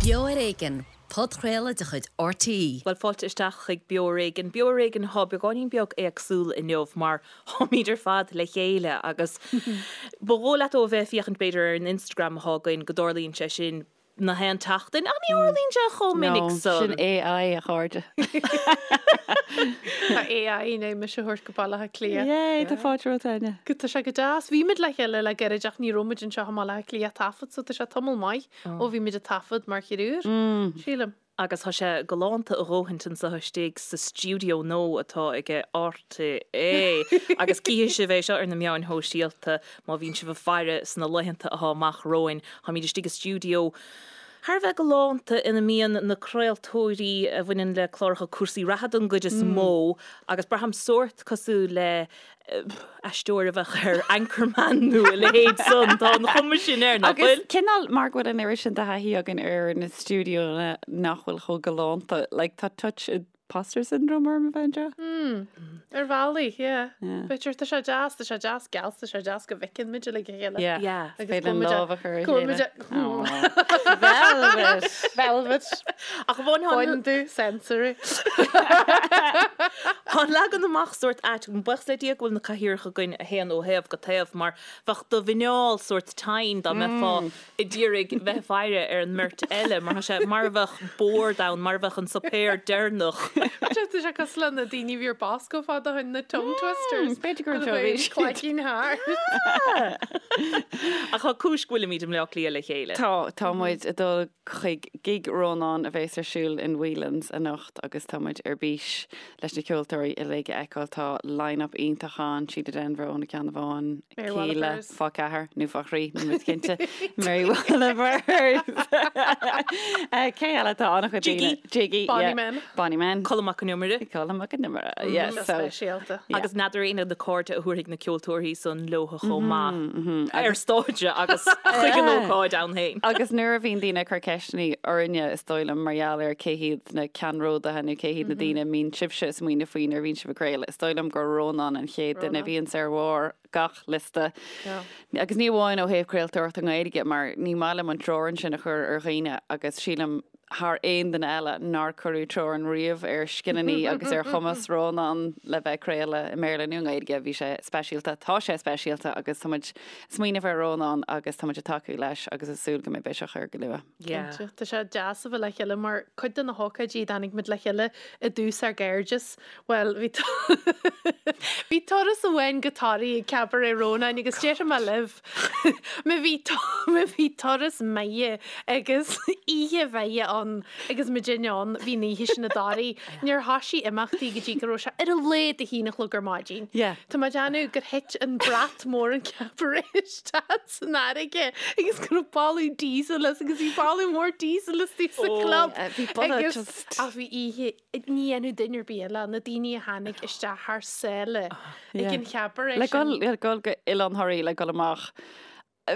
Beo ar Éigean, podchraoladh de chuid RTÉ. Bhuel, fáilte isteach chuig Beo ar Éigean. Beo ar Éigean atá beagáinín beag éagsúil inniu mar táimid ar fad le chéile agus ba dhóigh leat ó a bheith ag féachaint b'fhéidir ar an Instagram atá againn go dtarlaíonn sé sin na haon tseachtain ach ní tharlaíonn sé chomh minic No, san. sin AI, a chairde. Tá AI i ndiaidh mise a thabhairt go Baile Átha Cliath. Yay, tá fáilte romhat, Áine. Go, tá sé go deas. Bhí muid le chéile le gairid ach ní raibh muid anseo i mBaile Átha Cliath ag taifead so tá sé tamall maith ó bhí muid ag taifead mar thriúr, sílim. Agus tá sé galánta a dhóthaint anseo istigh sa stiúideo nua atá ag RTÉ. Agus cífidh sibh é seo ar na meáin shóisialta má bhíonn sibh ag faire sna laethanta atá amach romhainn. Táimid istigh i stiúideo thar a bheith galánta ina mbíonn na craoltóirí a bhaineann le cláracha cúrsaí reatha don gcuid is mó agus braithim sórt cosúil le aisteoir a bheadh ar Anchorman nó a leithéid san. Tá an chuma sin air, nach Agus bhfuil? cineál mar go bhfuil an oiread sin de thaithí againn ar na stiúideonna nach bhfuil chomh galánta, like tá touch imposter syndrome orm a bheith anseo. Hmm. Ar bhealaí, yeah. Yeah. B'fhéidir, tá sé deas, tá sé deas geal, tá sé deas go bhfeiceann muid uilig a chéile. Yeah. Yeah. Agus Féidir go bhfuil muid lámh a chur ar a go bhfuil muid chéile. Velvet! Velvet. Ach amháin tá an- Baineann sensory. Tá an leagan amach sórt ait, buíochas le Dia go bhfuil na cathaoireacha againn a théann ó thaobh go taobh mar bheadh do mhuineál sórt tinn dá mbeifeá ag iarraidh bheith ag faire ar an mbeirt eile mar tá sé mar a bheadh bord ann, mar a bheadh an suipéar deireanach. Tá sé cosúil le na daoine a bhí ar Bosco fad ó shin, na tongue twisters. B'fhéidir gur anseo a bhí siad. Cloigín thart. Ach tá cúis go bhfuilimid i mBleá Cliath le chéile. Tá, tá muid ag dul chuig gig Rónáin a bheas ar siúl in Whelan's anocht agus tá muid ar bís leis na ceoltóirí uilig a fheiceáil. Tá line-up iontach ann, Síle Denvir ó Na Ceannabháin, Mary Kíla Wallopers. fá ceathair nó fá thrí, níl muid cinnte. Mary Wallopers. Cé eile tá an-chuid Jiggy. daoine? Jiggy. Bonny yeah. Men. Bonny Men. Colm Mac Con Iomaire. Colm Mac Con Iomaire, yeah, Go so. speisialta. Yeah. Agus n'fheadar éinne na cairde a thabharfaidh na ceoltóirí san leo chomh maith ar stáitse agus chuig an ócáid ann féin. Agus nuair a bhíonn daoine ag cur ceisteanna orainne, is dóigh liom, mar gheall ar cé hiad na ceannródaithe nó cé hiad na daoine a mbíonn sibhse ag smaoineamh faoi nuair a bhíonn sibh ag craoladh, is dóigh liom gur Rónán an chéad duine a bhíonns ar bharr gach liosta. Agus ní amháin ó thaobh craoltóireachta Gaeilge, mar ní maith liom an teorainn sin a chur ar dhaoine agus sílim thar aon duine eile nár cuireadh teorainn riamh ar scileanna agus ar chumas Rónán le bheith ag craoladh i mBéarla nó i nGaeilge. Bhí sé speisialta, tá sé speisialta agus tá muid ag smaoineamh ar Rónán agus tá muid ag tacú leis agus ag súil go mbeidh biseach air go luath. Cinnte. Tá sé deas a bheith le chéile mar cuid de na hócáidí a dtáinig muid le chéile i dtús ár gcairdeas, bhuel, bhí bhí turas amháin go Toraigh ag Cabaret Rónáin agus déarfaidh mé libh, Má bhí má bhí turas maith agus oíche mhaith ann agus muidinne ann, bhí an oíche sin i dToraigh. Níor thoisigh imeachtaí go dtí go raibh sé ar a laghad a haon a chlog ar maidin. Yeah. Tá mé ag déanamh gur thit an brat mór an cabaret isteach san fharraige agus go raibh boladh diesel as agus bhí boladh mór diesel istigh sa chlub. Bhí boladh Agus just. ach bhí oíche ní dhéanfadh duine ar bith eile, na daoine a tháinig isteach thar sáile ag an chabaret Le sin. gul, le gul go Oileán Thoraí le gul amach.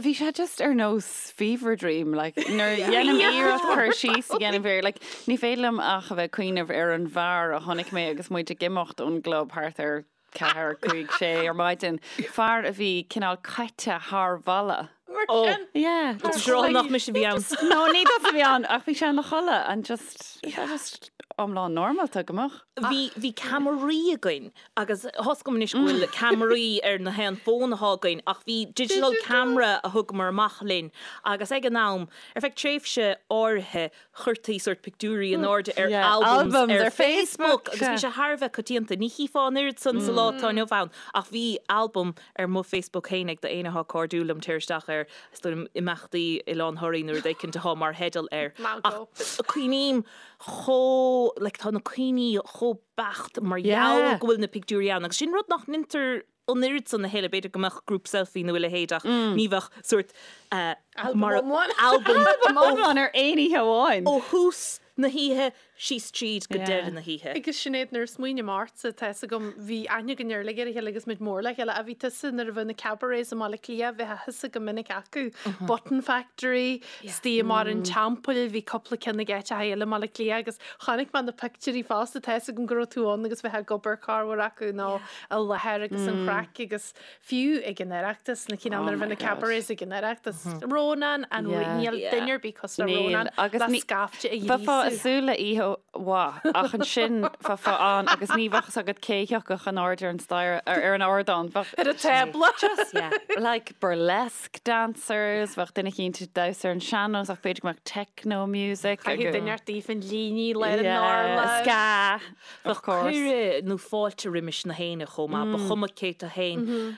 Bhí sé just ar nós fever dream, like, nuair a dhéanaim iarracht cur síos a dhéanamh air, like, ní féidir liom ach a bheith ag cuimhneamh ar an bhfear a chonaic mé agus muid ag imeacht ón gclub thart ar ceathair, cúig, sé ar maidin, fear a bhí cineál caite thar bhalla. Mar Oh. sin. Yeah. Tá sé rá nach mise a bhí ann. No, ní tusa a bhí ann, ach bhí sé ina chodladh and just, yeah, just iomlán normálta go mbeadh. Bhí, bhí ceamaraí againn agus tá 'fhios agam anois go bhfuil ceamaraí ar na haon fón atá againn ach bhí digital camera a thugamar amach linn agus ag an am, ar feadh tréimhse áirithe, chuirtí sórt pictiúirí in airde ar albums ar Facebook agus bhí sé thar a bheith coitianta. Ní chífeá an oiread san sa lá atá inniu ann ach bhí albam ar mo Facebook féin ag d'aon atá cairdiúil liom téir isteach ar is dóigh liom imeachtaí Oileán Thoraí nó rud éicint atá mar theideal air. Ach cuimhním chomh, like tá na cuimhní chomh beacht mar gheall go bhfuil na pictiúirí ann agus sin rud nach ndeintear an oiread san a thuilleadh, b'fhéidir go mbeadh group selfie nó a leithéid ach ní bheadh sórt Albam iomlán. albam Albam iomlán ar aon oíche amháin. ó thús. na hoíche síos tríd go deireadh na hoíche. Agus Sinéad, nuair a smaoiním ortsa, tá fhios agam, bhí aithne againn ar uilig ar a chéile agus muid mór le chéile, ach bhí tusa nuair a bheadh na cabarets i mBaile Átha Cliath, bheifeá thusa go minic acu, Button Factory, istigh i mBarr an Teampaill, bhí cúpla ceann ag áiteacha eile i mBaile Átha Cliath agus chonaic mé na pictiúirí fosta, tá fhios agam go raibh tú ann agus bheifeá ag obair corruair acu nó i láthair agus an chraic agus Fiú ag an Oireachtas, na cineál nuair a bhí na cabarets ag an Oireachtas, Rónán an rí, níl duine ar bith cosúil le Rónán le scaifte a Bheifeá ag súil le oíche mhaith ach ansin bheifeá ann agus ní bheadh fhios agat cé thiocfadh in airde ar an staighre, ar an ardán. Bheadh. Ar an tábla. Just like burlesque dancers, bheadh duine eicínt ag damhsa ar an sean-nós ach b'fhéidir go mbeadh techno music. Caithfidh duine ort daofa an líní le ar an urlár. Ska. Bheadh cuireadh nó fáilte roimis na héinne chomh maith, ba chuma cé tú fhéin.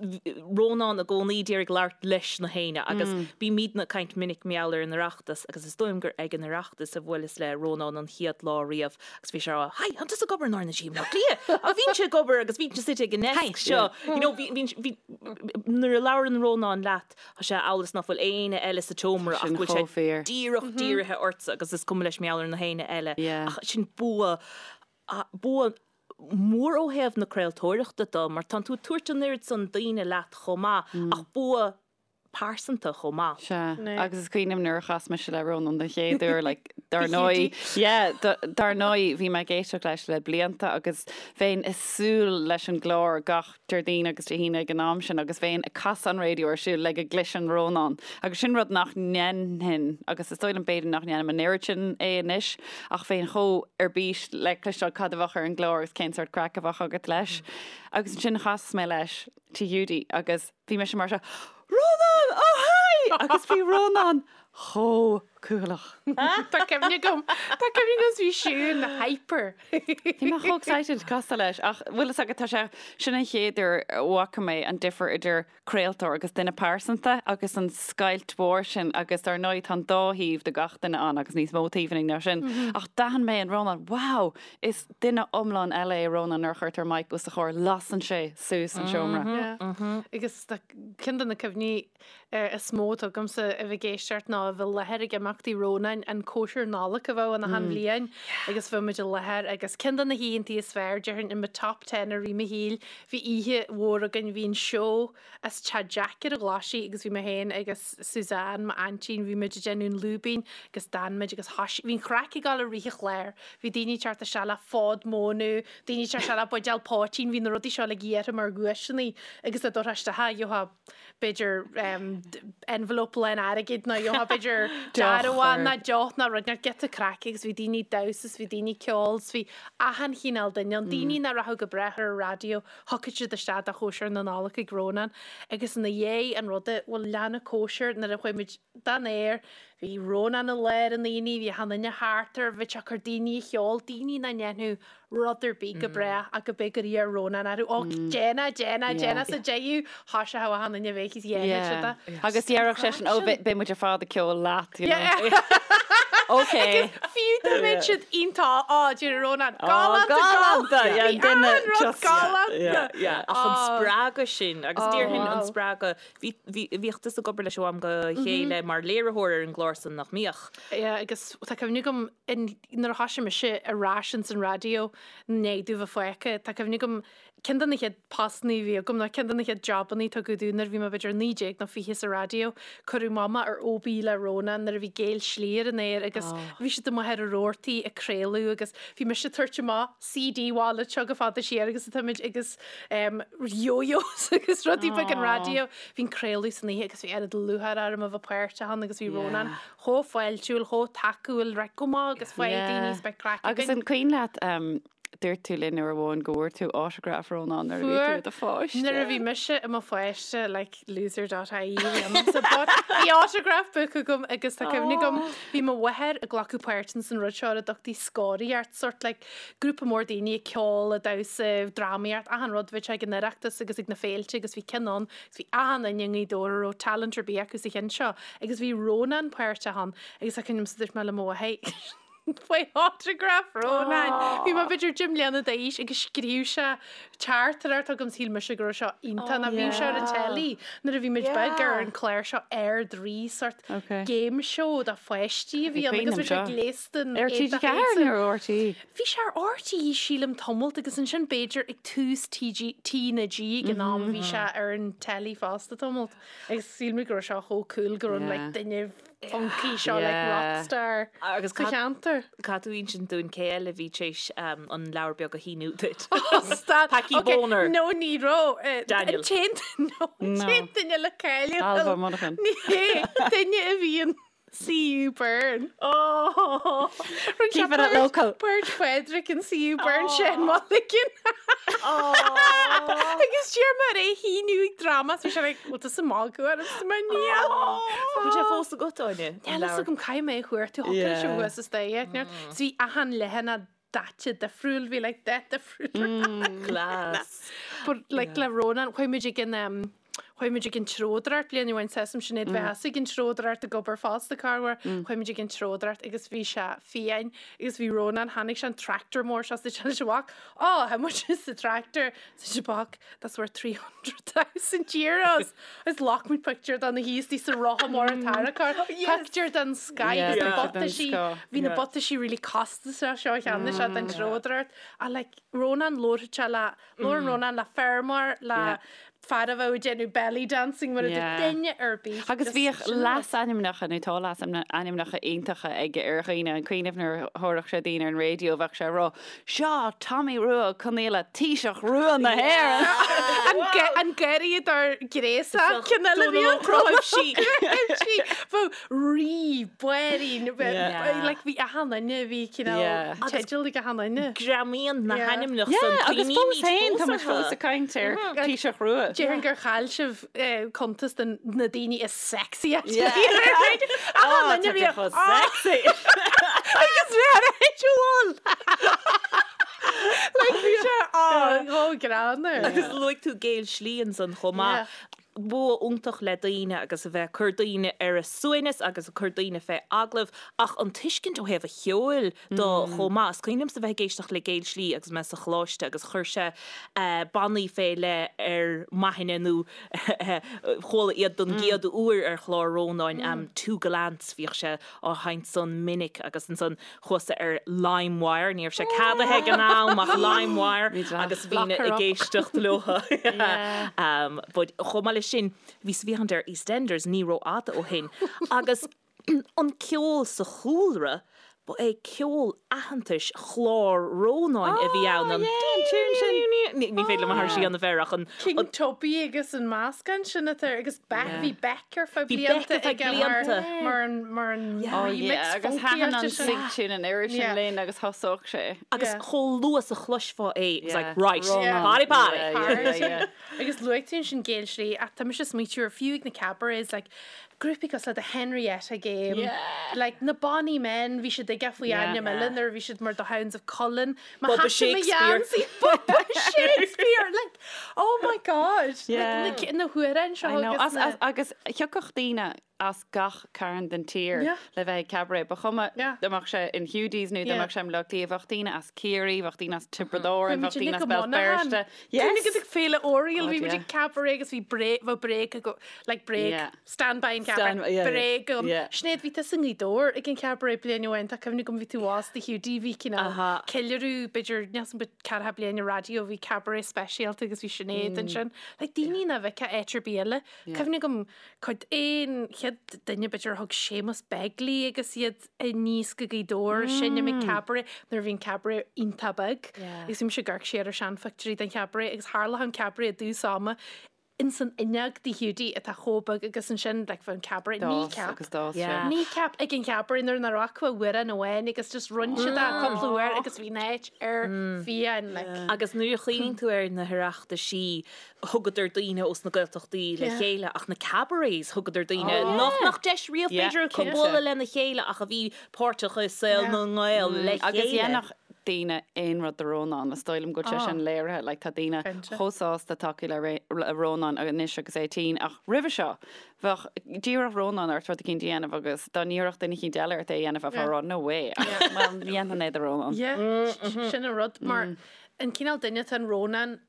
Rónán i gcónaí d'iarraidh labhairt leis na héinne agus bímidne ag caint minic mar gheall ar an Oireachtas agus is dóigh liom gur ag an Oireachtas a bhuaileas le Rónán an chéad lá riamh agus bhí sé ag rá, Hi, an tusa ag obair in R na G i mBleá Cliath? Ach bhínnse ag obair agus bhínnse suite ag an ndeasc seo. You know, bhí, bhí, bhí, nuair a labhrann Rónán leat, Tá sé amhail is ná fuil éinne eile sa tseomra ach go bhfuil sé díreach dírithe ortsa agus is cuma leis mar gheall ar na héinne eile. Ach sin bua, bua mór ó thaobh na craoltóireachta de mar tánn tú ag tabhairt an oiread san daoine leat chomh maith ach bua pearsanta chomh maith. Sea, agus is cuimhin liom nuair a chas mise le Rónán den chéad uair, like, dar ndóigh, yeah, dar ndóigh, bhí mé ag éisteacht leis le blianta agus bheinn ag súil leis an gclár gach Déardaoin agus Dé hAoine ag an am sin agus bheinn ag casadh an raidió ar siúl le go gcloisfinn Rónán agus sin rud nach ndéanfainn agus is dóigh liom b'fhéidir nach ndéanaim an oiread sin é anois ach bheinn chomh ar bís le cloisteáil cad a bheadh ar an gclár agus cén sórt craic a bheadh agat leis. Agus ansin chas mé leis Tigh Hiúdaí agus bhí mise mar seo, Rónán! Oh hi! Agus bhí Rónán chomh cúthaileach. Tá cuimhne agam, tá cuimhne agam bhí Siún hyper. Bhí mé chomh excited casadh leis ach bhfuil fhios agat tá sé, sin an chéad uair a bhfaca mé an difear idir craoltóir agus duine pearsanta agus an scoilt mhór sin agus dar ndóigh tá an dá thaobh de gach duine ann agus níos mó taobhanna ná sin ach d'aithin mé in Rónán, wow, is duine iomlán eile é Rónán nuair a chuirtear mic os a chomhair, lasann sé suas an seomra. Yeah. Agus tá ceann de na cuimhní is mó atá agamsa a bheith ag éisteacht ná a bheith i láthair ag imeachtaí Rónáin, an cóisir Nollag a bheadh ann achan bhliain agus bheadh muid i láthair agus ceann de na hoícheantaí is fearr, déarfainn, i mo top ten i rith mo shaoil, bhí oíche mhór againn, bhí an seó as Teach Jack ar an Ghlaisigh agus bhí mé féin agus Suzanne, m'aintín, bhí muid ag déanamh an lúibín agus d'fhan muid agus thoisigh, bhí an chraic ag dul i rith an chláir, bhí daoine ag teacht isteach le fód móna, daoine ag teacht isteach le buidéal poitín, bhí na rudaí seo uilig iarrtha mar dhuaiseanna agus dá dtabharfá isteach, gheofá b'fhéidir envelope lán airgid nó gheofá b'fhéidir dearbhán nó deoch nó rud nó giota craic agus bhí daoine ag damhsa is bhí daoine ag ceol is bhí achan chineál duine ann, daoine nach rachadh go brách ar an raidió, thiocfadh siad isteach do chóisir na Nollag ag Rónán agus ina dhiaidh an ruda, bhuel lean an cóisir nuair a chuaigh muid den aer, bhí Rónán i lár an aonaigh, bhí achan duine thart air, bhí sé ag cur daoine a cheol, daoine nach ndéanfadh rud ar bith go brách ach go b'é gur iarr Rónán orthu, Ó, déan é, déan é, déan é sa deireadh, thoiseodh achan duine a bheith is dhéanfadh siad é. Agus déarfadh seisean, Ó, beidh muid ar fad ag ceol leat, you know. Ok. Agus fiú dá mbeadh siad iontach, á, deir Rónán, galánta, galánta, yeah, bhí achan rud galánta. Yeah, ach an spreagadh sin, agus déarfainn an spreagadh, bhí, bhí, bhíodh tusa ag obair leis ó am go chéile mar léiritheoir ar an gclár san, nach mbíodh? Yeah, agus tá cuimhne agam in, nuair a thoisigh mise ar ais ins an raidió i ndiaidh domh bheith fágtha, tá cuimhne agam ceann de na chéad postannaí a bhí agam nó ceann de na chéad jabannaí a tugadh domh nuair a bhí mé b'fhéidir 19 nó 20 sa raidió, cuireadh mé amach ar OB le Rónán nuair a bhí Géill Slí ar an aer agus bhí siad amuigh ar an rabhartaí ag craoladh agus bhí mise ag tabhairt amach CD wallet seo go fada siar agus atá muid agus yo-yos agus rudaí beag an raidió. Bhí an craoladh san oíche agus bhí oiread lúcháir orm a bheith páirteach ann agus bhí Rónán chomh fáiltiúil, chomh tacúil, right, go maith agus faigh daoine is beidh craic Agus againn. an cuimhin leat, dúirt tú linn uair amháin go bhfuair tú autograph Rónán nuair a bhí tú i do pháiste. Nuair a bhí mise i mo pháiste, like loser dot ie bhí ionamsa, but bhí autograph book agam agus tá cuimhne agam, bhí mo mháthair ag glacadh páirt ins an rud seo ar a dtugtaí scoraíocht, sort like grúpa mór daoine ag ceol, ag damhsa, drámaíocht, achan rud, bhí sé ag an Oireachtas agus ag na féilte agus bhí ceann ann agus bhí achan duine i nGaoth Dobhair a raibh talent ar bith acu sa cheann seo agus bhí Rónán páirteach ann agus tá cuimhne agam dúirt mé le mo mháthair. Faoi autograph Rónáin. Bhí mé b'fhéidir 10 mbliana d'aois agus scríobh sé teachtaireacht chugam shíl mise go raibh seo iontach nó bhíodh sé ar an teilí nuair a bhí muid beag ar an chlár seo Ard-Rí sort game show do pháistí a bhí ann agus bhí sé gléasta in Ar TG4 nó ar RTÉ? Bhí sé ar RTÉ sílim tamalt agus ansin b'fhéidir ag tús TG, T na G ag an am bhí sé ar an teilí fosta tamalt agus shíl mé go raibh seo chomh cool go raibh like duine funky seo like rockstar Agus sa cheantar. Caithfidh tú insint dúinn cé eile a bhí tar éis an leabhar beag a shíniú duit. Stad. Packie Ok, Boner. No ní raibh. Eh, Daniel. An t-aon no, an No. t-aon duine le cáiliú. Ailbhe Monaghan. Ní hé, duine a bhí in CU Burn. Oh! Rinne sé Keep it at páirt- local. Páirt Phádraig in CU Burn Shane Mulligan. Agus d'iarr mé air é a shíniú ag dráma, so bhí sé like, bhfuil tusa ag magadh ormsa mar níl. Bhfuil sé fós agat, Áine? Níl a fhios agam caithfidh mé a chuartú, thiocfadh leis a bheith sa staic. So bhí achan leathanach daite difriúil, bhí like dath difriúil. Class. But like le Rónán, chuaigh muid ag an um, chuaigh muid ag an treodóireacht bliain amháin seasaim Sinéad bheith ag an treodóireacht ag obair fosta corruair, chuaigh muid ag an treodóireacht agus bhí sé fiáin agus bhí Rónán, tháinig sé an tractor mór seo sa sé amach, oh, how much is the tractor? Sa sé amach, that's worth 300,000 euros. Is ghlac muid pictiúr de ina shuí sa rotha mór an tarracóir. Pictiúr den sky Yeah, agus na pictiúr den butaisí, sky. bhí na butaisí really costasach seo cheannaigh sé den treodóireacht. Ach like, Rónán labharfadh sé le, labhrann Rónán le feirmeoir, le Yeah. fear a bheadh ag déanamh belly dancing mar a Yeah. dúirt duine ar bith. Agus Just bhíodh sin rud. leasainmneacha nó tá leasainmneacha iontacha aige ar dhaoine, an cuimhin nuair a thabharfadh sé daoine ar an raidió bheadh sé ag rá, Seo Tommy Rua Ó Conaola, Taoiseach Rua na hÉireann! An ge- an garraíodóir gréasach cinn eile bhí Dónal Ó Cnáimhsí. Cnáimhsí. Bheadh rí, bairín, Yeah. like bhí achan duine, bhí cineál Yeah. teideal ag achan duine. Greamaíonn na Yeah. hainmneacha Yeah, san agus fós cuimhnímid féin, tá fós muid fós orthu. ag caint ar Taoiseach Rua. Déarfainn gur chaill sibh cuntas de na daoine is sexy at Yeah. Achan duine bhí chomh sexy. Agus bhí ar bhfuil. Like bhí sé á chomh greannmhar. Agus luaigh tú Géill Slí ansan chomh maith. Bua iontach le daoine agus a bheith ag cur daoine ar a suaimhneas agus ag cur daoine fé agallamh ach an tuiscint ó thaobh a cheoil de chomh maith. Is cuimhin liomsa bheith ag éisteacht le Géill Slí agus mé sa choláiste agus chuir sé bannaí fé leith ar m'aithne nó chuala iad don gcéad uair ar chlár Rónáin, Two Gallants, bhíodh sé á sheinnt san minic agus ansan chuasa ar LimeWire, ní raibh sé ceadaithe ag an am ach LimeWire agus bhínn ag éisteacht leo. But chomh maith leis sin, bhíos ag féachaint ar EastEnders ní rófhada ó shin agus an ceol sa chúlra, ba é ceol aitheantais chlár Rónáin a bhí ann, an Ní féidir liom aithris a dhéanamh air ach an. King Tubby agus an meascán sin atá air agus Beck, bhí Beck ar feadh Bhí Beck blianta ar feadh aige mar blianta. mar an mar an Oh remix yeah, agus funky thaitin an áite sin. sig tune an oiread sin Yeah. linn agus thosódh sé. Agus Yeah. chomh luath is a chloisfeá é, it was like, Yeah. right, Rónán. party party. Yeah, yeah, yeah, yeah. Agus luaigh tú ansin Géill Slí ach tá mise ag smaoitiú ar fiú ag na cabarets like grúpaí cosúil le The Henrietta Game, Yeah. like na Bonny Men, bhí siad aige faoi Yeah. ainm eile nuair a bhí siad mar The Hounds of Cullen. Má Bubba thaiteann mo Shakespeare. gheansaí, Bubba Shakespeare! Like, oh my God! Yeah. Like, na, na hamhráin seo I know. agus As, na... as, agus thiocfadh daoine as gach cearn den tír Yeah. le bheith ag cabaret. Ba chuma Yeah. dá mbeadh sé in Hiúdaís nó dá Yeah. mbeadh sé i mBaile Átha Cliath, bheadh daoine as Ciarraí, bheadh daoine as Tiobraid Árann, Bhí bheadh muid daoine uilig as go Béal Monaghan. Feirste. Yes! Yes! ag Féile Oriel, God, bhí muid yeah. ag cabaret agus bhí bréag, bheadh bréag ago, like bréag, Yeah. stand by an cabaret, Stand- yeah, bréag agam. yeah. Sinéad, bhí tusa i nGaoth Dobhair ag an cabaret bliain amháin, tá cuimhne agam bhí tú abhus do Hiúdaí, bhí cineál Aha. ceiliúradh, b'fhéidir, níl 's agam, ceathracha bliain an raidió, bhí cabaret speisialta agus bhí Sinéad ansin. Like daoine nach bhfeicfeá áit ar bith eile. Cuimhne agam cuid aon chéad duine b'fhéidir a thug Séamus Begley agus iad aníos go Gaoth Dobhair seinm ag cabaret nuair a bhí an cabaret iontach beag. Agus bhí mise ag amharc siar ar seanphictiúirí den chabaret agus tharlódh an cabaret i dtús ama ins an fhuinneog de Hiúdaí atá chomh beag agus ansin like bheadh an cabaret D'fhás kneecap agus d'fhás sé. Yeah. kneecap ag an chabaret nuair nach raibh acu ach amhrán amháin agus just rinne siad é cúpla uair agus bhí an áit ar fiáin like. Agus nuair a chuimhníonn tú ar na hOireachtaisí thugadar daoine ós na Gaeltachtaí le Yeah. chéile ach na cabarets thugadar daoine nach mbeadh deis riamh Yeah, b'fhéidir acu cinnte. bualadh lena chéile ach a bhí páirteach i saol Yeah. na nGael le Agus chéile. dhéanfadh daoine aon rud do Rónán, is dóigh liom go bhfuil sé sin léirithe, like tá daoine chomh sásta tacú le Rónán anois agus é tinn ach roimhe seo bheadh d'iarrfadh Rónán ort rud eicínt a dhéanamh agus dá n-iarrfadh duine eicínt eile ort é a dhéanamh bheifeá ag rá no way ach well dhéanfainn é do Rónán. Yeah, sin an rud mar an cineál duine atá in Rónán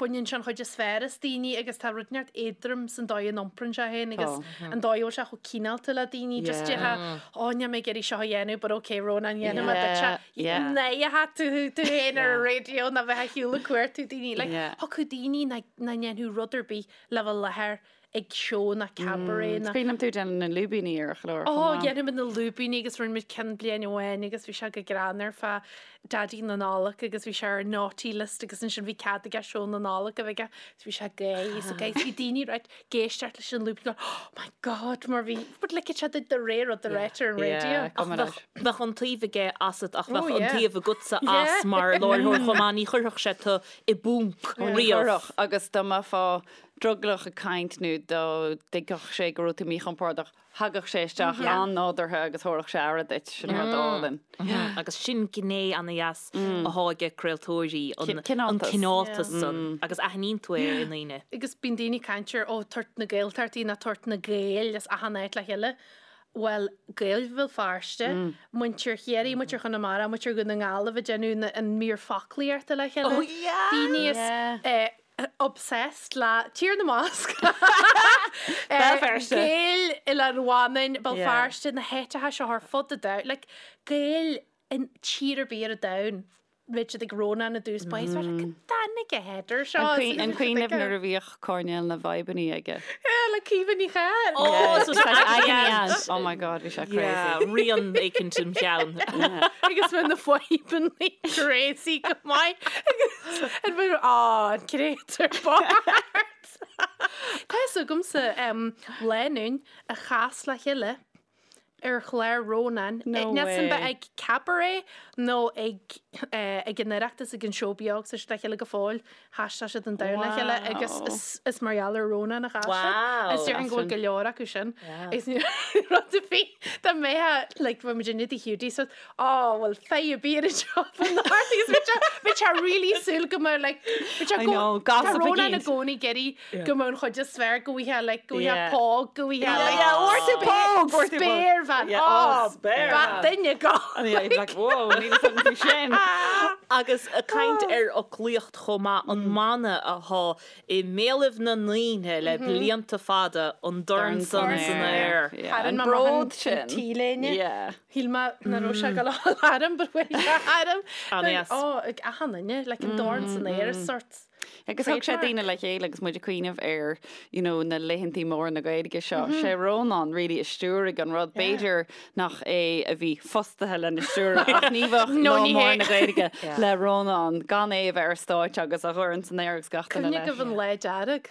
baineann sé an chuid is fearr as daoine agus tá rud inteacht éadrom san dóigh a n-iomprann sé féin agus an dóigh a bhfuil sé chomh cineálta le daoine. Just déarfá, ó níl mé ag iarraidh seo a dhéanamh but ok Rónán dhéanfaidh mé duit é. Ná tú tú féin ar an raidió ná bheith ar shiúl ag cuartú daoine. Like, thiocfadh daoine nach ndéanfadh rud ar bith le bheith i láthair ag seó ná cabaret ná. Is cuimhin liom tú ag déanamh na lúibíní ar an chlár chomh maith. Ó, dhéanadh muid na lúibíní agus rinne muid ceann bliain amháin agus bhí sé go greannmhar fá Daidí na Nollag agus bhí sé ar an naughty list agus ansin bhí cead aige seó na Nollag a bheith aige agus bhí sé gay so guys bhí daoine right ag éisteacht leis an lúibín going oh my god mar bhí but like it's de réir rud a ráitear ar an raidió. Ach bheadh bheadh an taobh aige asat ach bheadh an taobh agatsa as mar láithreoir chomh maith ní chuirfeadh sé tú i bponc riamh. Chuirfeadh agus dá mbeifeá drogallach ag caint nó dá dtuigfeadh sé go raibh tú míchompordach, thagadh sé isteach an-nádúrtha agus thabharfadh sé aire duit. Sin rud álainn. Agus sin gné ana-dheas athá aige craoltóirí, an cineáltas san, agus aithníonn tú é i ndaoine. Agus bíonn daoine ag caint ar, ó, tabhairt na Gaeltachtaí ná tabhairt na Gaeil as achan áit le chéile. Bhuel, Gaeil Bhéal Feirste, muintir Chiarraí, muintir Chonamara, muintir Dhún na nGall a bheith ag déanamh an mír foclaíochta le chéile. Daoine as obsessed le Tír na mBasc, Béal Feirste. Gaeil Oileán Mhanainn, Béal Feirste, na háiteacha seo ar fud an domhain, like Gaeil in tír ar bith ar an domhan, bheadh siad ag Rónán i dtús báire, is bheadh like, dáinig a header seo. An cuimhin libh nuair a bhíodh coirnéal na bhfadhbannaí aige? Yeah, le Caoimhe Ní Chadhain. Oh, so agony Oh my God, bhí sé crazy. Yeah, rian éicint im cheann. Agus bheadh na fadhbannaí crazy go maith. Agus an bhfuil á, an créatúr bocht. Tá fhios agamsa lánúin a chas le chéile ar chlár Rónáin. No Níl san way. bheith ag cabaret nó ag ag an Oireachtas ag an seó beag tá siad le chéile go fóill. Thaistil siad an domhan le chéile agus Wow. is is mar gheall ar Rónán a chas siad. Wow. Agus déarfainn go bhfuil go leor acu sin. Agus ní rud a bhí dá mbeadh like bheadh muid in Tigh Hiúdaí so Ó, bhuel, feidh a bíonn anseo fan art agus bhí sé bhí sé really súil go mbeadh like bhí sé I go know, tá gossip Rónán i again. gcónaí ag iarraidh go mbeadh an chuid is fearr go bhfaighfeá like go bhfaighfeá Yeah. póg go bhfaighfeá Yeah, like yeah, fuair tú póg, fuair tú póg. spéirbhean. Yeah, Ó, oh, spéirbhean. ba duine go. And yeah, he'd be like, whoa, níl a fhios agam faoi sin. Agus ag caint ar fhoclaíocht chomh maith, an mana athá i mbéalaibh na ndaoine le blianta fada, an dorn san san aer. Yeah, Tharraing an mé amach bród an sin. T-léine. Yeah. Shíl mé nach raibh sé ag dul a dhul orm but bhí sé orm. An-dheas. Ó, ag achan duine, like an dorn san aer is sort Agus thug sé trademark. daoine le chéile agus muid ag cuimhneamh ar you know, na laethantaí móra na Gaeilge seo. Sé Rónán really a stiúraigh an rud. B'fhéidir nach é a bhí fostaithe lena stiúradh ach ní bheadh No, lá ní mór hé. na Gaeilge le Rónán gan é a bheith ar stáitse agus a dhorn san aer agus gach duine Cuimhnigh leis. go an lá dearg.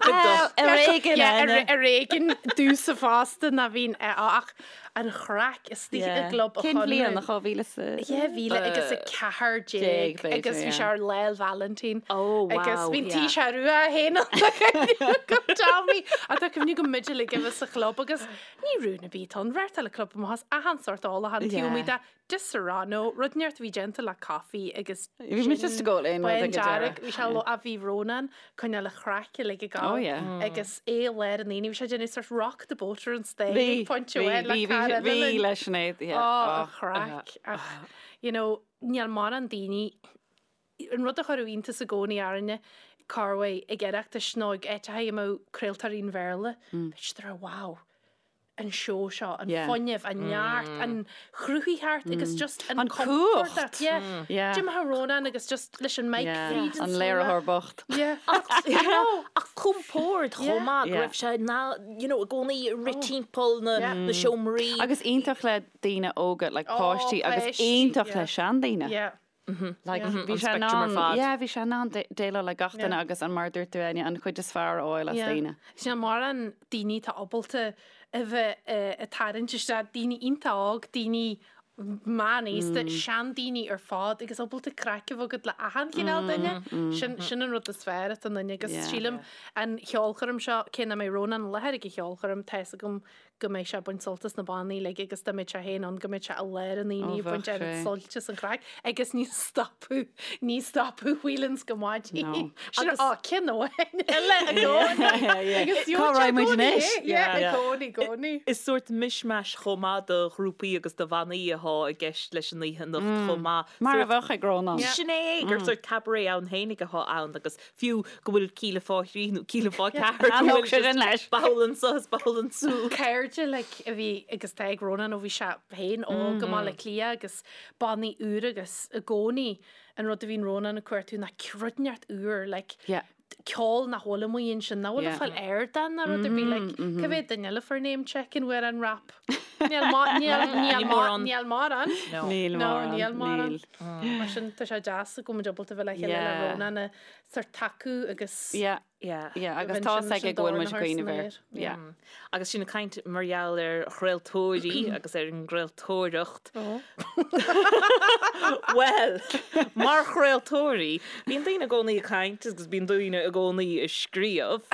Well, ar éigean, Yeah, ar Áine. ar éigean domhsa fosta ná bhíonn ach an chraic istigh i gClub an Cén bhliain, Chonradh. 2000 is a... 2000 agus 14 Déag, b'fhéidir, agus bhí sé yeah. ar Lá 'le Vailintín. Oh, wow, Agus bhí an yeah. t-séar rua féin ann go Tommy. A tá cuimhne go muide uilig a bheith sa chlub agus ní raibh na bith ann, bheart eile club amach as achan sórt ólachán, Yeah. taobh amuigh de Disaronno, rud inteacht a bhí déanta le caife agus Bhí muid just ag ól aon rud bain ag an dearg, deireadh. bhí sé lo- a bhí Rónán coinneáil a chraic uilig ag Oh gabháil yeah. agus é i lár an aonaigh, bhí sé ag déanamh sort rock the boat ar an stage Bhí, ag pointe bhí, amháin le bhí, bhí, cara bhí eile linn. le Sinéad, yeah. Oh, a Oh. chraic. Ach, you know, níl mórán daoine, an rud a chuireadh iontas i gcónaí orainne, corruair ag Oireachtais nó ag áiteacha a mbeadh craoltóirí an Bhéarla, bheadh siad ag rá, wow, an seó seo, an fuinneamh, an neart, an chruthaitheacht agus just an An compord. cumhacht. Yeah. Yeah. D'imigh Rónán agus just leis an mic Yeah. fríd an An slua. léiritheoir bocht. Yeah. Ach compord chomh maith go Yeah. raibh sé na, you know, i gcónaí ag rith timpeall na Yeah. na seomraí. Agus iontach le daoine óga, like Oh, páistí, agus páistí, iontach yeah. le seandaoine. Yeah. Like, bhí An sé in spectrum ar ann, fad. yeah, bhí sé in ann déileáil le gach duine Yeah. agus an mar a dúirt tú, Áine, an chuid is fearr a fháil as Yeah. daoine. Sin mórán daoine atá ábalta a bheith ag tarraingt isteach daoine iontach óg, daoine meánaosta, seandaoine ar fad agus ábalta craic a bheith agat le achan chineál duine. Sin sin an rud is fearr atá ionainn agus sílim an cheolchoirm seo, cé nach mbeidh Rónán i láthair ag an cheolchoirm, tá fhios agam go mbeidh sé ag baint sult as na bannaí uilig agus dá mbeadh sé féin ann go mbeadh sé i lár an aonaigh ag baint oiread suilt as an chraic agus ní stopadh ní stopadh Whelan's go maidin. No. Sin á ceann amháin eile i gcónaí. Agus Cá raghaidh muid anois? Yeah, i gcónaí, i gcónaí. Is sórt mishmash chomh maith de ghrúpaí agus de bhannaí atá i gceist leis an oíche anocht chomh maith. Mar a bheadh ag Rónán. Sin é, gur sórt cabaret ann féinig atá ann agus Fiú go bhfuil cíle fá thrí nó cíle fá ceathair go bhfuil sé sin leis. Ball anso is ball ansúd. Cairde like a bhí agus tá ag Rónán ó bhí sé féin óg i mBaile Átha Cliath agus bannaí úra agus i gcónaí an rud a bhíonn Rónán ag cuartú ná rud inteacht úr like ceol nach bhfuil amuigh ansin nach bhfuil le fáil ar ardán ná rud ar bith like cá mhéad duine eile fuair name checking uair an rap? Níl níl mórán. Níl mórán. Níl mórán. Níl mórán. Mar sin tá sé deas go bhfuil muid ábalta bheith le chéile le Rónán a sort tacú agus Yeah. Yeah. Yeah, agus tá fhios aige go bhfuil muid ag cuimhneamh air. Yeah. Agus sinn ag caint mar gheall ar chraoltóirí agus ar an gcraoltóireacht. Bhuel, mar chraoltóirí, bíonn daoine i gcónaí ag caint agus bíonn daoine i gcónaí ag scríobh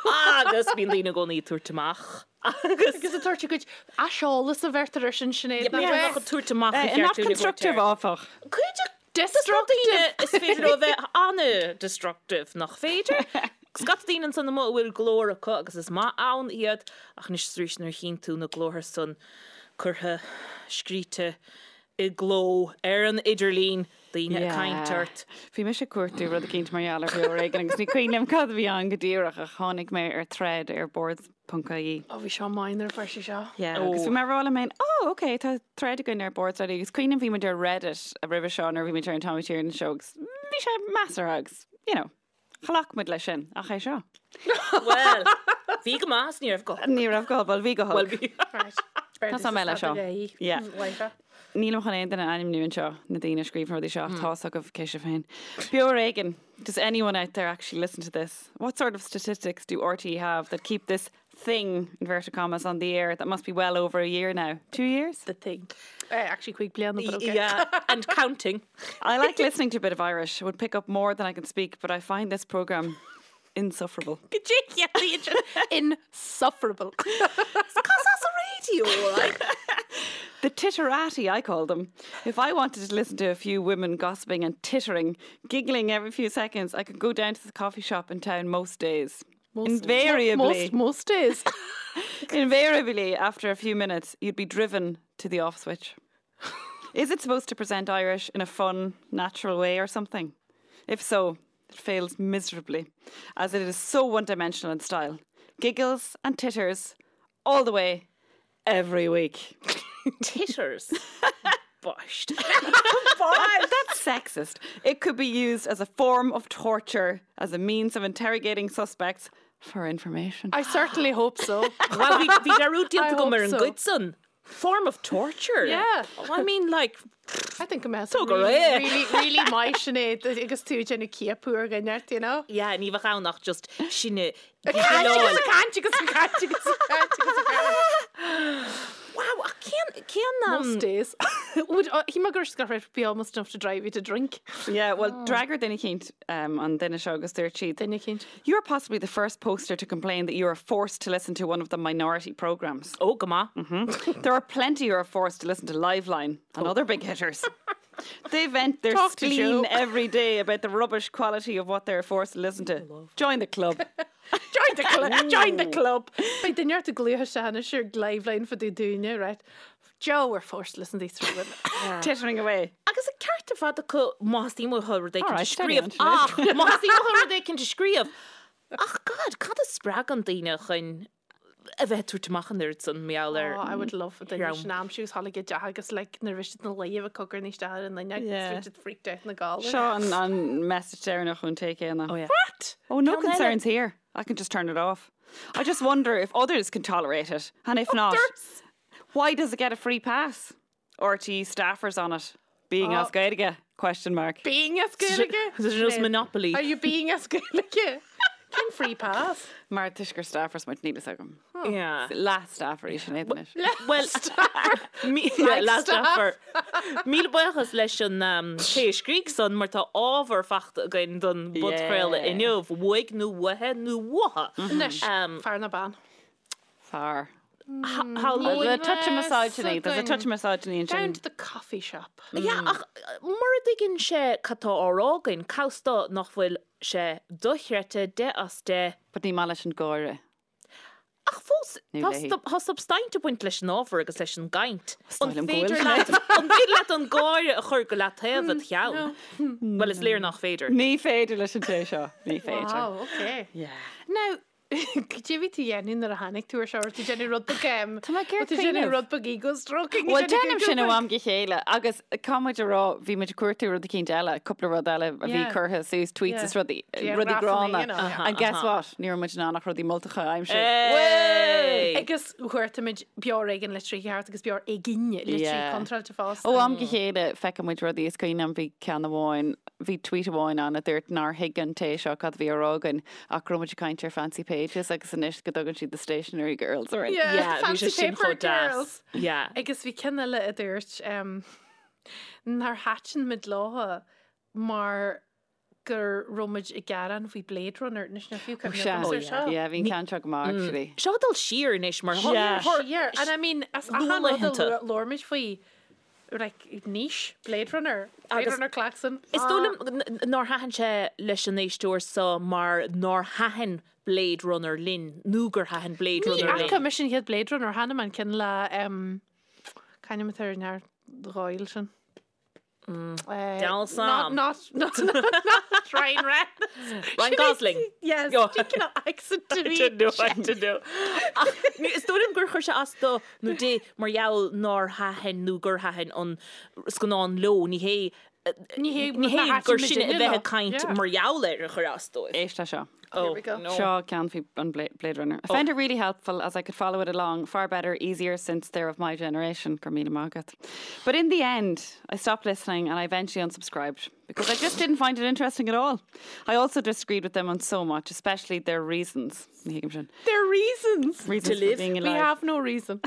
agus bíonn daoine i gcónaí ag tabhairt amach. Agus ag tabhairt a gcuid aiseolas a bheirtear ar sin Sinéad nach ea? Ag tabhairt amach a Not constructive áfach. Cuid Destructive! Is féidir leo a bheith an-destructive, nach féidir? Scata daoine ansan amuigh a bhfuil glór acu agus is maith ann iad, ach anois is arís nuair a chíonn tú na glórtha san curtha, scríte i gcló ar an idirlíon, daoine ag caint ort. Bhí mise ag cuartú rud eicínt mar gheall ar Bheo ar Éigean agus ní cuimhin liom cad a bhí ann go díreach ach tháinig mé ar thread ar Boards. ponc ie. Ó bhí seo maith nuair a fuair sí seo. Yeah, agus bhí mé ag rá liom féin, oh ok, tá thread againn ar Boards already agus cuimhním bhí muid ar Reddit roimhe seo nuair a bhí muid ar an Tommy Tiernan Show agus bhí sé measartha agus, you know, ghlac muid leis sin, ach é seo. Bhuel, bhí go maith is ní raibh go holc. Ní raibh go holc, bhuel bhí go holc. Bhuel bhí. Right. Tá mé leis seo. Yeah. Nílim chun aon duine a ainmniú anseo, na daoine a scríobh na rudaí seo, ach tá's agaibh cé sibh féin. Beo ar Éigean. Does anyone out there actually listen to this? What sort of statistics do RTÉ have that keep this thing, inverted commas, on the air that must be well over a year now? 2 years? The thing. Uh, actually cúig bliana, but okay. Yeah, and counting. I like listening to a bit of Irish. I would pick up more than I can speak, but I find this programme insufferable. Insufferable. Cos as a radio, like. The titterati, I call them. If I wanted to listen to a few women gossiping and tittering, giggling every few seconds, I could go down to the coffee shop in town most days. Most, invariably, most, most days. invariably, after a few minutes, you'd be driven to the off switch. Is it supposed to present Irish in a fun, natural way or something? If so, it fails miserably, as it is so one-dimensional in style. Giggles and titters all the way every week. Titters. Bushed. That's sexist. It could be used as a form of torture, as a means of interrogating suspects for information. I certainly hope so. Well, bhí bhí dearúd I déanta agam hope ar an so. gcuid san. Form of torture. Yeah. I mean like I think go mbeadh Tóg ar really, é. really, really maith Sinéad agus tú ag déanamh ciapadh ar dhuine ort, you know? Yeah, ní bheadh ann ach just sinne Ag caint agus ag caint agus ag caint agus ag caint agus ag caint. Wow, ach cén cén Most days. Would uh, he mar gur raibh be almost enough to drive you to drink. Yeah, well, d'fhreagair duine eicínt um, an duine seo agus dúirt siad. Duine eicínt. You're possibly the first poster to complain that you are forced to listen to one of the minority programmes. Ó, go maith. There are plenty who are forced to listen to Liveline and other big hitters. They vent their Talk to spleen Joe. every day about the rubbish quality of what they're forced to listen to. Join the club. Join the club. Join the club. Beidh duine ort ag glaoch isteach anois ar Liveline fá dtaobh dúinne, right? Joe, we're forced to listen to these three women. Tittering away. Agus an ceart ar fad acu má theastaíonn uathu rud éicint a Alright, steady scríobh. on, Sinéad. Ach, má theastaíonn uathu rud éicint a scríobh. Ach God, cad a spreagann daoine chun a bheith ag tabhairt amach an oiread san mar gheall ar Oh, I would love duine dhream. sin aimsiú is tháinig i dteach agus like nuair a bhí siad ina luí a bheith cogarnaí isteach ar an duine agus Yeah. bhí siad freaked out ina gcodladh. Seo an, an message deireanach ón té céanna. Oh, yeah. What? Oh, no Ceann eile. concerns here. I can just turn it off. I just wonder if others can tolerate it. And if not, Others? why does it get a free pass? RTÉ staffers on it. Being Oh. as Gaeilge? Question mark. Being as Gaeilge? There's no monopoly. Are you being as Gaeilge? Cén free pass? Mar toisc gur staffers muid, níl fhios agam. Yeah. Leath-staffer í Sinéad anois. Well, leath-staffer. Míle buíochas leis an té a scrígh san mar tá ábhar fachta againn don bpodchraoladh inniu, uaidh nó uaithe nó uatha. Anois, fear nó bean? Fear. There's a touch of misogyny. There's a touch of misogyny ansin. Down to the coffee shop. Yeah, ach mura dtuigeann sé cad tá á rá againn, cá bhfios dó nach bhfuil sé dochreidte, 10 as 10. But ní maith leis an gáire. Ach fós, Nó léi. tá substaint ag baint leis an ábhar agus leis an gcaint. An An féidir liom go féidir bhfuil leat an féidir leat an gáire a chur go leataobh id cheann? Bhuel, is léir nach féidir. Ní féidir leis an té seo. Ní féidir. Wow, okay. Yeah. Now, Cad é bhí tú dhéanamh nuair a tháinig tú ar seo? Raibh tú déanamh rud beag em, Tá mé ag iarraidh raibh tú déanamh cuimhneamh. rud beag ego stroking? Bhuel, déanaim sin ó am go chéile agus caithfidh muid a rá, bhí muid ag cuartú rud eicínt eile, cúpla rud eile a bhí Yeah. curtha suas, tweets Yeah. is rudaí, Yeah, rudaí grafanna, gránna. you know, yeah. And guess what? Ní raibh muid in ann ach rudaí moltacha a aimsiú. Hey! Agus chuartaigh muid Beo Ar Éigean litrí ceart agus Beo Ar Éigean litrí Yeah. contráilte fosta. Ó am go chéile feiceann muid rudaí is cuimhin liom bhí ceann amháin, bhí tweet amháin ann a dúirt nár thuig an té seo cad a bhí á rá againn ach go raibh muid ag caint ar Fancy Pages agus anois go dtugann siad the stationery girls orainn. Yeah, Yeah, bhí Fancy sé sin Paper chomh deas. Girls. Yeah. Agus bhí ceann eile a dúirt um, nár thaitin muid leo mar gur raibh muid ag gearán faoi Blade Runner anois níl fiú cuimhne Sea. agam ar seo. Yeah, bhí an ceann seo go maith actually. Seo ag dul siar anois mar Yeah. Siar. And I mean, as achan rud a Luathlaethanta. labhair labhair muid faoi like niche, Blade Runner, Blade Runner klaxon. Is dóigh liom nár thaitin sé leis an éisteoir seo mar nár thaitin Blade Runner linn nó gur thaitin Blade Ní Runner linn. fhaca mise an chéad Blade Runner, chonaic mé an ceann le c'ainm atá ar an fhear dhóil sin. Deal Sam. Not, not, not Ryan Reynolds. Ryan Gosling. Yes, Yo. cineál accent to me. I don't know, I don't know. Ach, Is dóigh liom gur chuir sé as dó nó di mar gheall nár thaitin nó gur thaitin an scannán leo, ní hé Ní hé ní hé nár gur thaitin sinne a muidinne bheith leo. ag caint Yeah. mar gheall air a chuir as dóibh. Éist leis seo. Oh, we go. no. Seo ceann faoi an Blade Runner. I found it really helpful as I could follow it along far better, easier since they're of my generation. Go raibh míle maith agat. But in the end, I stopped listening and I eventually unsubscribed because I just didn't find it interesting at all. I also disagreed with them on so much, especially their reasons. Ní thuigim sin. Their reasons. Reasons To for live. being We alive. have no reason.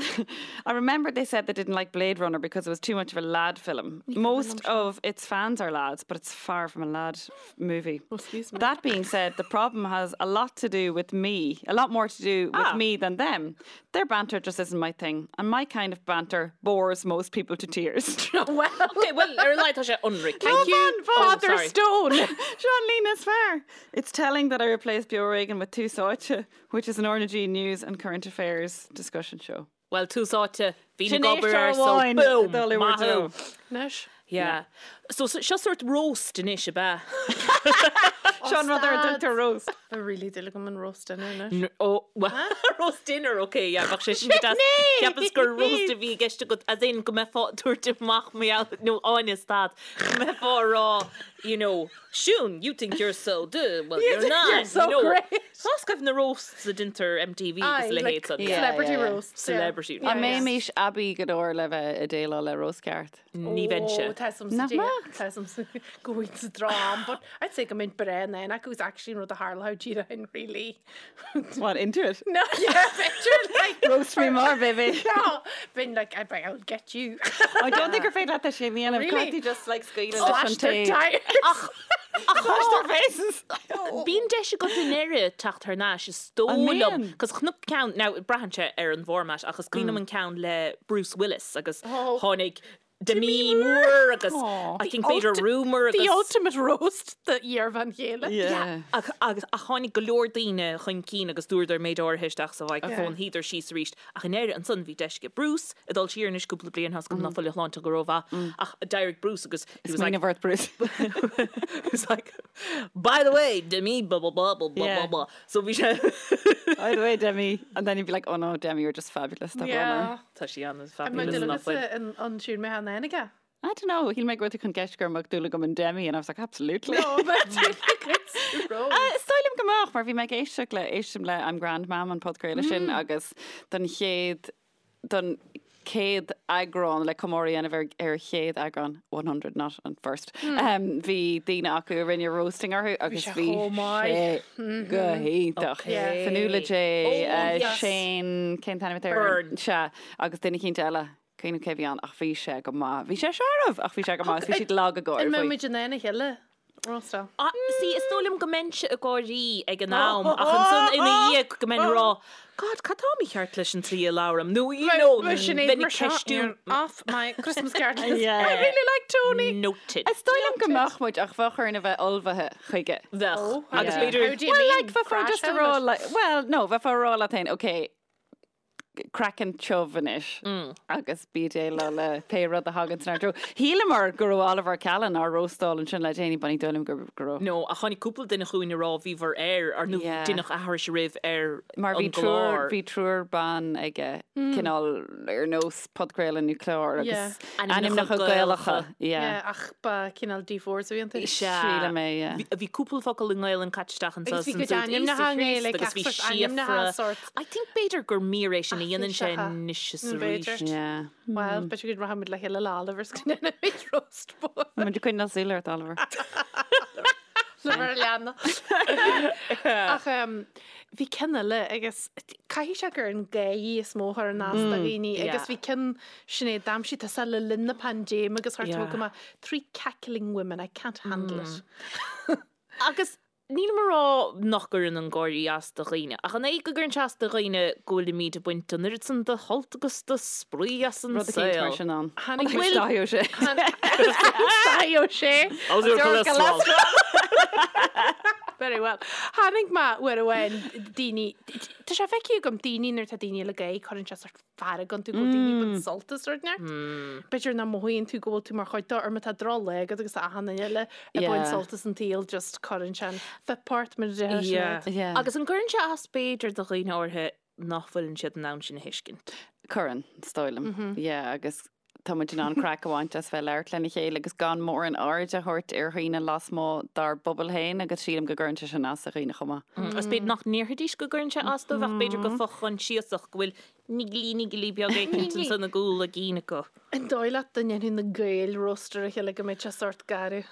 I remember they said they didn't like Blade Runner because it was too much of a lad film. Most of its fans are lads, but it's far from a lad f- movie. Oh, excuse me. That being said, the problem has a lot to do with me, a lot more to do with Ah. me than them. Their banter just isn't my thing, and my kind of banter bores most people to tears. Well, Okay, well, ar a laghad tá sé ionraic. thank you, Father Oh, sorry. Stone. Sean Lena is fair. It's telling that I replaced Beo Ar Éigean with Tús Áite, which is an RnaG news and current affairs discussion show. Well, Tús Áite, bhí Sin na gobar éisteoir ar so amháin boom, dul i maith bhur thú. Anois. Yeah. So so- seo sórt roast anois ab ea. Sean rud ar stad. dtugtar roast. Tá really dúil agam in roast dinner anois. N- Oh, well, roast dinner, okay, yeah, bheadh sé sin go deas. Cheapas gur roast a bhí i gceist agat, as in go mbeifeá ag tabhairt amach mar gheall, nó Áine stad, go mbeifeá ag rá, you know, Siún, you think you're so duh, well, You you're think not. you're so you know. great. Tá scaibh na roasts a deintear MTV agus Aye, leithéid like san. Yeah, celebrity yeah, yeah. roasts. yeah. Celebrity Yeah, An yeah. mbeimis aibí go leor le bheith ag déileáil le roast ceart? Ní bheinnse. Oh, tá some Nach mbeadh? Tá some go bhfuil sa drám, but I'd say go mbeinn breá in ann acu is actually an rud a tharla díreach in really. What, into it? No, yeah, picture like Roast me more, baby. No, been like I'd be, I'll get you. I don't think gur féidir leat é sin a dhéanamh. Really? Can't you just like scaoileadh leis Slash an their tae? tires. Slash their faces. Bíonn deis agat i ndeireadh teacht thar n-ais is dóigh An liom, mbíonn? cos chonac ceann, now braitheann sé ar an bhformat, ach is cuimhin liom an ceann le Bruce Willis agus Oh. tháinig Demi Moore agus Aw. I think b'fhéidir Rumour The agus ultimate roast the iarbhean chéile. Yeah. Ach, agus ach tháinig go leor daoine chun cinn agus dúradar méid áirithe isteach sa mhicreafón, shuíodar síos arís. Ach i ndeireadh ansan bhí deis ag Bruce ag dul siar anois cúpla bliain, tá 's agam ná fuil a shláinte go rómhaith, ach d'éirigh Bruce agus he was like, Smaoineamh ort, Bruce. he was like, by the way, Demi, blah, blah, blah, blah, blah, Yeah. blah, blah. So bhí sé... By the way, Demi. And then you'd be like, oh no, Demi, you're just fabulous. Tá Yeah. Tá sí an An fabulous mbeadh nach bhfuil. duine an an siúr mé an aige? I don't know. Shíl mé go raibh tú chun ceist go mbeadh dúil agam in Demi and I was like, absolutely. No, but roast. Is dóigh liom go mbeadh, mar bhí mé ag éisteacht le éistim le I'm Grand Mam an podchraoladh sin agus don chéad don chéad eagrán le comóradh a dhéanamh ar ar chéad eagrán, 100 not an first. Bhí daoine acu a rinne roasting orthu agus sé bhí chomh maith. sé go hiontach. Yeah. Fionnuala J, Oh, yes. Shane, cén t-ainm atá air? Byrne. Sea, agus duine eicínt eile, cuimhním cé bhí ann ach bhí sé go maith. Bhí sé searbh ach bhí sé go maith agus bhí siad lag ag gáire An mbeidh faoi. muid in ann a chéile roastáil? Ah, see, is dóigh liom go mbeinnse ag gáirí ag an am ach ansan ina dhiaidh go mbeinn ag rá, God, cad tá mícheart leis an tslí a labhraim? Nó, you know, bheinn ag ceistiú. Off my Christmas card list. Yeah. I really like Tony. Noted. Is dóigh liom go mbeadh muid ach bheadh orainn a bheith ullmhaithe chuige. Bheadh. Oh, Agus yeah. b'fhéidir How do you Well, mean? like, bheifeá Crash just a rá, helmet? like, well, no, bheifeá a rá leat féin, okay, craiceann tiubh anois agus bí ag déileáil le pé rud a thagann inár dtreo. Shíleamar go raibh Oliver Callan á róstáil ansin le déanaí, but ní dóigh liom go raibh. No, ach tháinig cúpla duine chugainn a rá bhíobhair air, ar nó Yeah. deineadh aithris oraibh ar Mar bhí an gclár. triúr, bhí triúr ban aige, cineál ar nós podchraoladh nó clár Yeah. agus Ainmneacha ainmneacha Gaelacha. Gaelacha. Yeah. Yeah, ach ba cineál D4s a bhí iontu. Sea. Sílim é, yeah. Bhí bhí cúpla focal i nGaelainn caite isteach anso Agus bhí san cuid sórt ainmneacha Íosa i nGaeilge, Chríost agus bhí gach sórt ainmneacha síofra. sórt. I think b'fhéidir gur mír é sin a dhéanann sé Áiféiseacha. anois is B'fhéidir. arís. Yeah. Well, b'fhéidir go rachaimid le chéile le Oliver 's go ndéanfaimid roast mór. Tá muid ag coinneáil súil ort, Oliver. Le bheith ar leanna. Ach em, bhí ceann eile agus caithfidh sé gur an gáire is mó a chuireann as do dhaoine agus bhí ceann Sinéad d'aimsigh tusa le linn na paindéime agus chuir tú go maith three cackling women, I can't handle it. Agus nílim ag rá nach gcuireann an gáirí as do dhaoine, ach an é go gcuireann sé as do dhaoine go bhfuilimid ag baint an oiread san de shult agus de spraoi as an Rud eicínt mar saol? sin ann. Tháinig Bhfuil Dáithí Ó Sé. Dáithí Ó Sé. How's your cholesterol? Very well. Tháinig mé uair amháin daoine, tá sé feicthe agam daoine nuair atá daoine eile ag gáire cuireann sé sort fearg iontu go bhfuil daoine ag baint sult as rud inteacht. B'fhéidir nach mothaíonn tú go bhfuil tú mar chuid de or má tá drochlá agat agus achan duine eile ag baint Yeah. sult as an tsaol just cuireann sé an fuip ort mar a déarfá Yeah. Sinéad. Yeah. Agus an gcuireann sé as b'fhéidir do dhaoine áirithe nach bhfuileann siad in ann sin a thuiscint? Cuireann, is dóigh liom. Yeah, agus tá muid in ann craic a bhaint as bheith labhairt lena chéile agus gan mórán aird a thabhairt ar dhaoine lasmuigh dár bpobal féin agus sílim go gcuireann sé sin as do dhaoine chomh maith. Agus b'fhéidir nach ndéarfaidís go gcuireann sé as dóibh ach b'fhéidir go fo-choinsiasach go bhfuil nigilí nigilí beag éicint ansan i gcúl a gcinn acu. An dóigh leat dá ndéanfadh na Gaeil roast ar a chéile go mbeadh sé sórt garbh?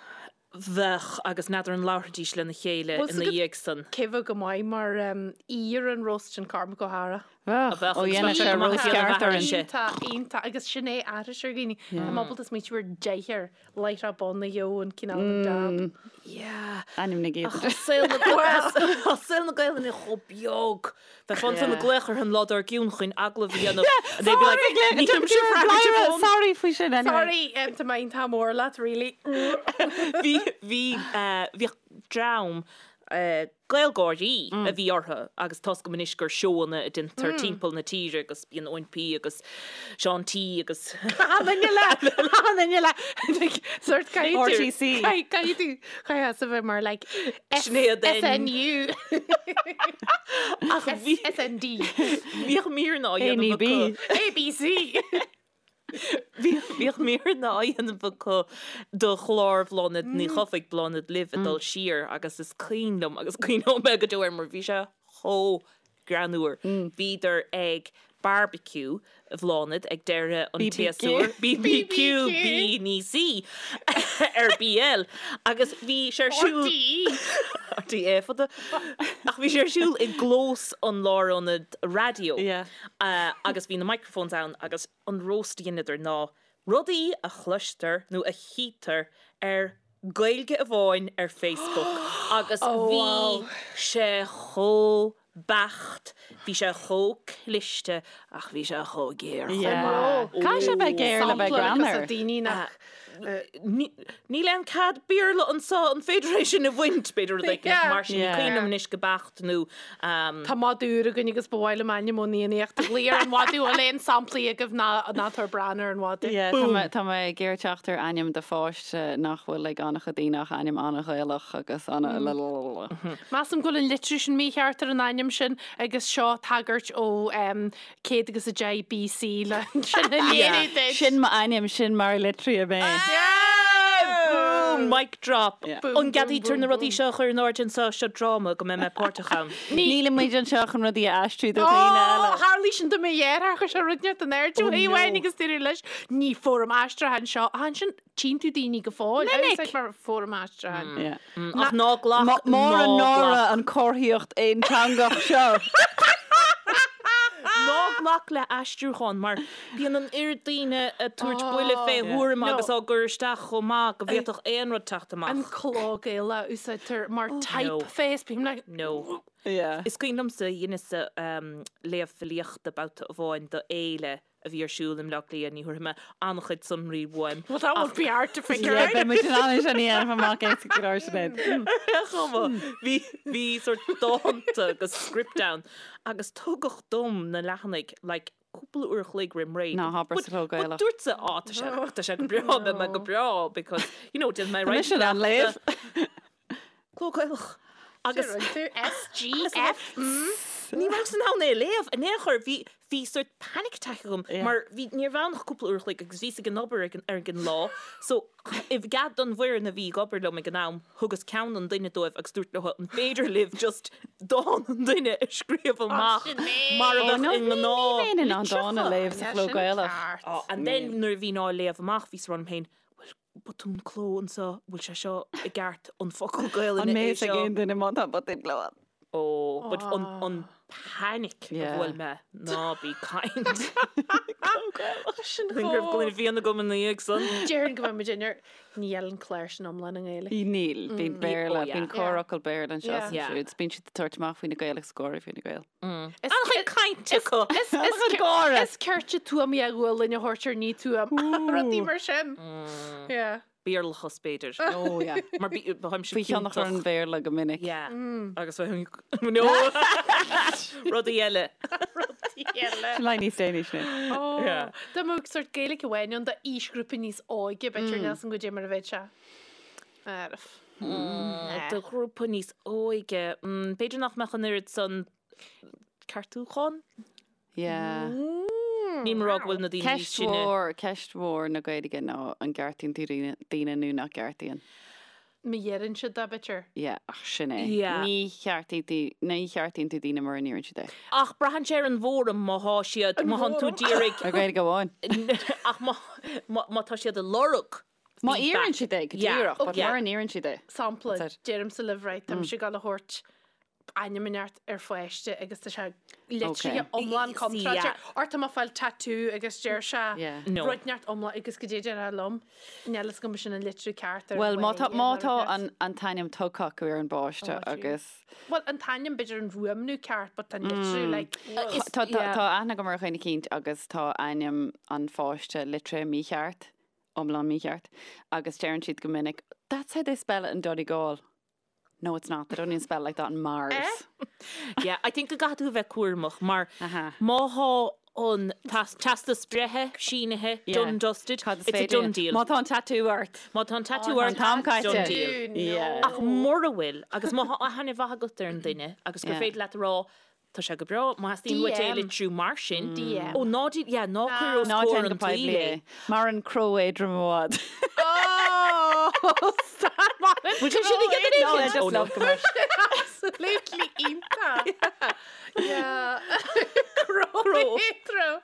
Bheadh, agus n'fheadar an labharfaidís lena chéile Bhfuil ina 's agat dhiaidh san. cé bheadh go maith mar aoi ar an roast sin Cormac Ó hEára. Bheadh, Bheadh, ó agus dhéanadh bheadh sé sé go maith roast ag déanamh ceart orainn. aithrise. Iontach, iontach, agus sin é aithris ar dhaoine. Tá mé ábalta smaoitiú ar deichniúr láithreach bonn a gheobhadh an cineál an jab. Yeah. Ainm na Ach gcéad. tá saol na Tá saol na Gaelainne chomh beag. Bheifeá ansan ag glaoch orthu an lá dár gcionn chun agallamh a dhéanamh and they'd be like, "Nílimse freagrach ar fón." Sorry faoi sin anyway. Sorry, tá mé iontach mór leat, really. Bhí, bhí, bhíodh dream GaelGáirí a bhí orthu agus tá's agam anois gur seóanna a deintear timpeall na tíre agus bíonn Eoin P agus Seán T agus Achan duine le, achan duine le, like, sort caithfidh tú, RTC. caithfidh tú, caithfidh tú a bheith mar like S, Sinéad N. SNU. Ach bhí, SND. bhíodh míreanna á dhéanamh NEB. acu. ABC. Bhíodh míreanna á dhéanamh acu do chlár Bhláthnaid Ní Chofaigh, Bláthnaid Libh, ag dul siar agus is cuimhin liom agus cuimhneoidh mé go deo air mar bhí sé chomh greannmhar. Bhíodar ag barbecue Bhláthnaid ag deireadh an tséasúir. BBQ, B ní C ar BL agus bhí sé ar siúl. RTÉ. RTÉ fada. Ach bhí sé ar siúl i gclós an lárionaid raidió. Agus bhí na microphones ann agus an roast a dheineadar ná rudaí a chloistear nó a chítear ar Gaeilge Amháin ar Facebook agus bhí sé chomh beacht, bhí sé chomh cliste ach bhí sé chomh géar chomh maith. Caithfidh sé bheith géar le bheith greannmhar. Daoine nach Níl aon cead Béarla anseo, an féidir é sin a bhaint? B'fhéidir rud éicint mar sin, ní cuimhin liom anois go beacht nó. Tá madadh úr againn agus ba mhaith liom ainm ón Fhiannaíocht a ghlaoch ar an mhadadh. Bhfuil aon samplaí agaibh ná ná tabhair Bran ar an mhadadh. Yeah, tá mé, tá mé ag iarraidh teacht ar ainm do pháiste nach bhfuil ag an-chuid daoine ach ainm an-Ghaelach agus ana lalalala. Measaim go bhfuil an litriú sin mícheart ar an ainm sin agus seo tagairt ó 110 BC le sin a léiriú duit. Sin m'ainm, sin mar a litríodh mé. Boom! Boom, mic drop. Yeah. Boom, An gceadaítear boom, na rudaí boom. seo a chur in airde anseo, seo dráma go mbeidh mé páirteach ann. Níl muid anseo chun rudaí a aistriú do dhaoine eile. Ó, tharlaigh sin do mo dheartháir, chuir sé rud inteacht in airde Oh, uaidh no. amháin agus dúradh leis, ní fóram aistriúcháin seo. Ach ansin, tchíonn tú daoine go fóill. Minic. Úsáid mar fóram aistriúcháin. Yeah. Ach ná glac, Mór an ná náire glac. an chomharthaíocht aonteangach seo. Ná glac le aistriúchán mar bíonn an oiread daoine ag tabhairt buille fé thuairim agus á gcur isteach chomh maith go bhféadfadh aon rud teacht An amach. cló Gaelach a úsáidtear mar typeface, bím like, No. Yeah. Is cuimhin liomsa dheineas-sa léamh filíochta babhta amháin do fhéile a bhí ar siúl i mBleá Cliath, ní thabharfaidh mé an-chuid sonraí uaim. Well that won't be hard to figure Yeah, out. beidh muid in ann é sin a dhéanamh amach éasca go leor, Sinéad. Ar chuma, bhí, bhí sort dánta agus script ann agus tugadh dom na leathanaigh like cúpla uair a chloig roim ré. Ná habair But, sa chló but Gaelach. dúrtsa, á, tá sé, tá sé go breá, beidh mé go breá because, you know, déanfaidh mé Tá roinnt mise in ann léamh. Cló Gaelach. Agus SGF. ní rabhas in ann é a léamh in aon chor. Bhí, bhí sort panic attack agam Yeah. mar bhí, ní raibh ann ach cúpla uair a chloig agus bhíos ag an obair ag an, ar an lá. So, i gcead don bhfoireann a bhí ag obair liom ag an am, thugas ceann an duine dóibh agus dúirt leo an féidir libh just dán an duine a scríobh amach mar a Oh, bheadh no, i ní, ní ngnáth bheinn in ann dán a litreacha. léamh sa chló Gaelach. Oh, and then nuair a bhínn á léamh amach bhíos ag rá liom féin, bhfuil botún cló anseo, bhfuil sé seo i gceart, an focal Gaelainne An é mbeidh ag seo? aon duine má tá botún cló ann? Oh, but an, an panic a Yeah. bhuail mé, ná bí ag caint. Sin Go raibh gloine fíona agam ina dhiaidh san. Déarfainn go mbeidh muid in ar níl an clár sin iomlán i nGaeilge. Níl, bíonn Béarla, Oh, yeah. bíonn corrfhocal Béarla anseo Yeah. is Yeah. ansiúd. Bíonn siad ag tabhairt amach faoi na Gaeil agus gáire faoi na Gaeil. An-chuid cainte acu. Is An-chuid gáire. Is cirte tuama a bhfuil a thabhairt ar ní tuam. Rudaí mar sin. Yeah. Béarlachas b'fhéidir. Oh, yeah. Mar bímse Faoi thionchar an Bhéarla go minic. Yeah. Agus bheinn no. Rudaí eile. Rudaí eile. Sin le níos déanaí sin. Oh. Yeah. Dá mbeadh sort Gaeilge amháin ann d'aoisghrúpa níos óige b'fhéidir níl 's agam goidé mar a bheadh sé. Arf. Do ghrúpa níos óige, b'fhéidir nach mbeadh an oiread san ceartúchán? Yeah. Níl mé ag rá go bhfuil na daoine níos Ceist sine. mhór, ceist mhór na Gaeilge ná an gceartaíonn tú daoine, daoine nó nach gceartaíonn. Má iarrann siad é, b'fhéidir. Yeah, ach sin é. Yeah. Ní cheartaíonn tú, ní cheartaíonn tú daoine mura n-iarrann siad é. Ach braitheann sé ar an bhfóram má thá siad, má thánn tú d'iarraidh, Ar Ghaeilge amháin. ach má, má, má tá siad ag lorg Má feedback. iarrann siad é, go Yeah, díreach, but yeah. mura n-iarrann siad é. Sampla, That's it. deirimse libh, right, tá mise ag gabháil a thabhairt ainm inteacht ar pháiste agus tá sé litrithe Okay. iomlán See, contráilte. yeah. Or tá mé ag fáil tattoo agus deir sé Yeah. No. rud inteacht iomlán agus goidé déarfá liom. Níl fhios agam sin an litriú ceart ar Well, má tá, bhaile má nó rud tá inteacht. an, an t-ainm tugtha acu ar an bpáiste Oh, agus Well, an t-ainm b'fhéidir an fuaimniú ceart, but tá an litriú like Is- tá, tá, yeah. tá aithne agam ar dhuine eicínt agus tá ainm an pháiste litrithe mícheart, iomlán mícheart, agus deireann siad go minic, That's how they spell it in Donegal. No, it's not. They don't even spell it like that in Mars. Yeah, I think go gcaithfidh tú a bheith cúramach mar Aha. má thá an teastas breithe sínithe, Yeah. done dusted, Cad is it's a féidir done léi? deal. Má tá an tattoo ort. Má tá an tattoo Oh, ort, an t-am caite. done deal. Yeah. Ach mura bhfuil, agus má thá aithne mhaith agat ar an duine agus gur Yeah. féidir leat a rá, tá sé go breá, má theastaíonn uait é a DM. litriú mar sin. DM. Ó, ná dí, yeah, ná cuir os Ná comhair déan an go poiblí tsaoil é. é. Mar an cró éadrom i bhfad. Oh, stop Bhfuil sé sin i gcead No, I éigin? just Oh, no. love go much. Absolutely iontach. Yeah. Cró éadrom.